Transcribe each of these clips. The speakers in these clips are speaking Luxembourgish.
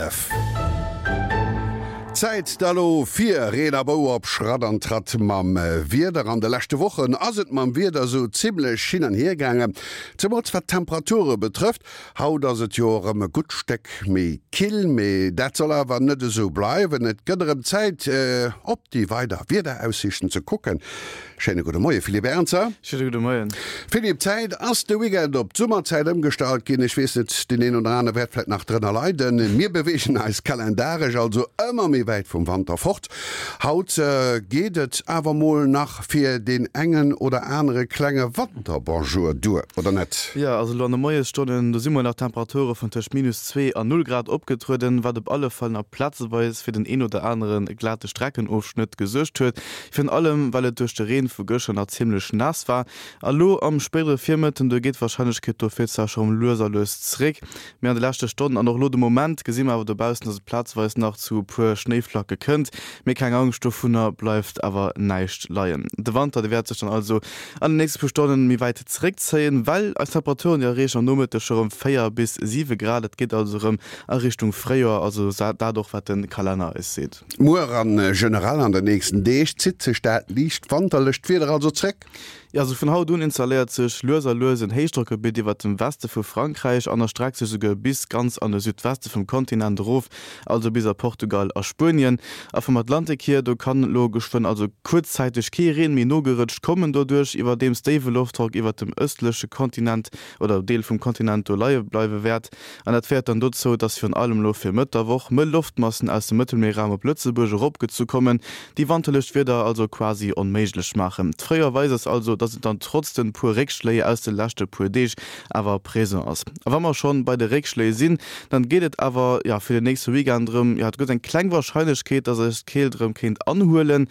F. Zäit da lo fir Reen a Bou op Schratt an Tratt mam Wieder. An de leschte Wochen ass et mam Wieder sou zimmlech hin an hier gaangen, zemools wat d'Temperature betrëfft. Haut ass et jo erëm e gutt Stéck méi kill, mee dat soll awer net esou bleiwen. Et gëtt erëm Zäit op déi weider Wiederaussiichten ze kucken. Schéine gudde Moie Philippe Ernzer. Schéine gudde Moien. Philippe, d'Zäit ass de Weekend op d'Summerzäit ëmgestallt ginn. Ech weess net, deen een oder anere wäert vläit nach drënner leiden. Mir beweegen eis kalendaresch also ëmmer méi wäit vum Wanter fort. Haut geet et awer mol nach fir deen engen oder anere klenge Wanterbonjour duer, oder net? Jo, also elo an de Moiesstonnen, do si mol nach Temperature vun tëscht minus 2 an 0 Grad opgetrueden, wat op alle Fall nach plazeweis fir den een oder anere glate Streckenofschnëtt gesuergt huet. Virun allem well et duerch de Reen vu gëschter nach zimmlech naass war. A lo am spéidere Virmëtten, do geet d'Warscheinlechkeet dofir zwar scho rem lues a lues zréck, mee an de leschte Stonnen an och lo de Moment gesi mer awer dobaussen, dass et plazeweis nach zu e puer Schnéiflacke kënnt. Mee keng Angscht, dovunner bleift awer näischt leien. De Wanter, dee wäert sech dann also an den nächste puer Stonnen méi wäit zeréckzéien, well eis Temperaturen, déi erreechen am Nomëtteg scho rem 4 bis 7 Grad. Et geet also rem a Richtung Fréijoer, also dat och wat de Kalenner eis seet. Muer an generell an den nächsten Deeg zitt sech dat liicht wanterlecht Wieder also zréck. Jo, also vun haut un installéiert sech lues a lues en Héichdrockgebitt iwwert dem Weste vu Frankräich an erstreckt sech esouguer bis ganz an de Südweste vum Kontinent erof, also bis a Portugal a Spuenien. A vum Atlantik hier, do kann elo geschwënn also kuerzzäiteg kee Reen méi nogerëtscht kommen, doduerch iwwerdeems déiwe Loftdrock iwwert dem ëstleche Kontinent oder Deel vum Kontinent do leie bleiwe wäert. An dat féiert dann dozou, dass virun allem elo fir Mëtt der Woch mëll Loftmassen aus dem Mëttelmierraum op Lëtzebuerg eropgezu kommen, déi wanterlecht Wieder also quasi onméiglech maachen. D'Fréijoer weist eis also, dass et dann trotz den puer Réckschléi aus de leschte puer Deeg awer présent ass. A wa mer schonn bei de Réckschléi sinn, dann geet et awer jo fir den nächste Weekend erëm, jo et gëtt eng kleng Warscheinlechkeet, dass eis d'Keelt erëm kéint anhuelen,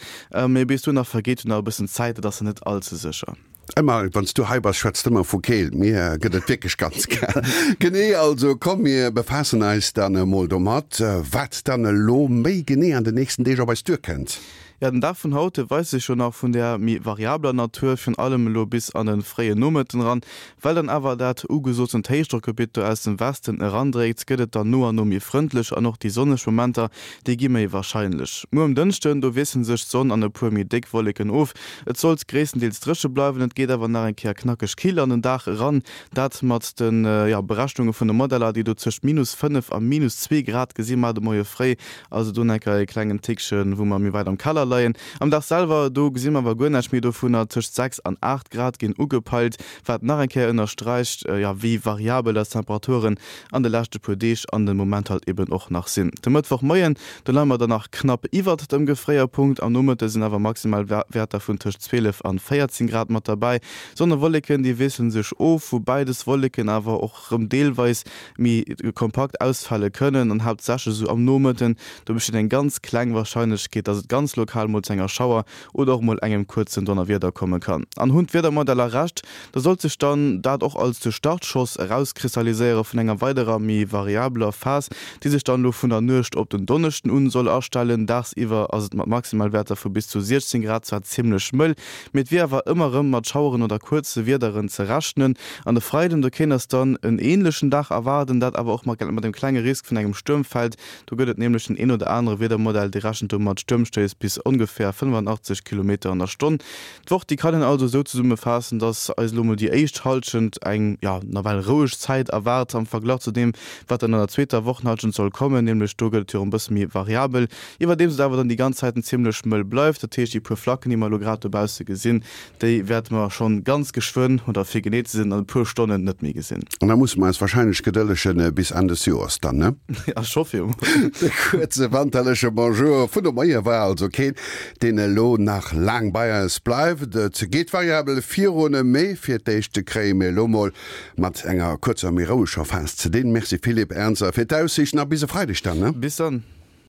mee bis dohinner vergeet jo nach e bëssen Zäit, et ass net all ze sécher. Ëmmer wann s du hei bass, schwätz de ëmmer vu Keelt. Mir gëtt et wierklech ganz kal. Genee, also komm mir befaassen eis dann emol domat, wat dann elo méi genee an den nächsten Deeg op eis duerkënnt. Jo, den Dag vun haut, dee weist sech jo nach vun där méi variabler Natur, virun allem elo bis an de fréie Nomëtten eran. Well dann awer dat ugesotent Héichdrockgebitt do aus dem Westen erandréckt, gëtt et dann no an no méi frëndlech an och déi sonneg Momenter, déi gi méi warscheinlech. Muer um Dënschden, do wiessele sech d'Sonn an e puer méi déck Wolleken of. Et sollt gréisstendeels dréche bleiwen, et geet awer nach eng Kéier knackeg kill an den Dag eran, dat mat de Berechnunge vun de Modeller, déi do tëscht minus 5 a minus 2 Grad gesi mar de Moie fréi, also do nach eng Kéier e klengen Tickchen, wou mer méi wäit am Keller leien. Am Dag selwer, do gesi mer awer guer näischt méi dovunner, tëscht 6 an 8 Grad ginn ugepeilt, wat nach eng Kéier ënnersträicht, wéi variabel eis Temperaturen an de leschte puer Deeg an de Moment halt eben och nach sinn. De Mëttwochmoien, do leie mer dann nach knapp iwwert dem Gefréierpunkt, am Nomëtte sinn awer maximal Wäerter vun tëscht 12 an 14 Grad mat derbäi. Sonn a Wolleken, déi wiessele sech of, woubäi des Wolleken awer och rëm deelweis méi kompakt ausfale kënnen an haaptsächlech esou am Nomëtten, do besteet eng ganz kleng Warscheinlechkeet, dass et ganz lokal mol zu enger Schauer oder och mol engem kuerzen Donnerwieder komme kann. An hunn d'Wiedermodeller Recht, da sollt sech dann dat och als de Startschoss erauskristalliséiere vun enger weiderer méi variabeler Phas, déi sech dann elo vun der Nuecht op den Donneschden un soll astellen. Dagsiwwer ass et mat Maximalwäerter vu bis zu 16 Grad zwar zimmlech mëll, mee et wier awer ëmmer erëm mat Schaueren oder kuerze Wiederen ze rechnen. An de Freiden, do kéint eis dann en änlechen Dag erwaarden, dat awer och mat dem klenge Risk vun engem Stuermfeld. Do gëtt et nämlech den een oder anere Wiedermodell, dee rechent do mat Stuermstéiss bis ongeféier 85 Kilometer an der Stonn. D'Woch, déi kann een also esou zesummefaassen, dass eis elo mol déi éischt Hallschent eng, jo, nawell roueg Zäit erwaart am Verglach zu deem, wat dann an der zweeter Wochenhallschent soll kommen, nämlech do gëtt et jo erëm e bësse méi variabel, iwwerdeems et awer dann déi ganz Zäiten zimmlech mëll bleift. Dat heescht, déi puer Flacken, déi mer elo grad dobausse gesinn, déi wäerte mer schonn ganz geschwënn, oder fir genee ze sinn, an e puer Stonnen net méi gesinn. An da musse mer eis warscheinlech gedëllegen bis Enn des Joers dann, ne? Ja, ech hoffe jo mol. De kuerze wanterleche Bonjour vun de Moie war also keen, deen elo nach laang bei eis bleift. Et geet variabel virun, mee fir d'éischt kréie mir elo mol mat enger kuerzer, méi roueger Phas ze dinn. Merci Philippe Ernzer fir d'Aussiichten a bis e Freideg dann, ne? Bis dann.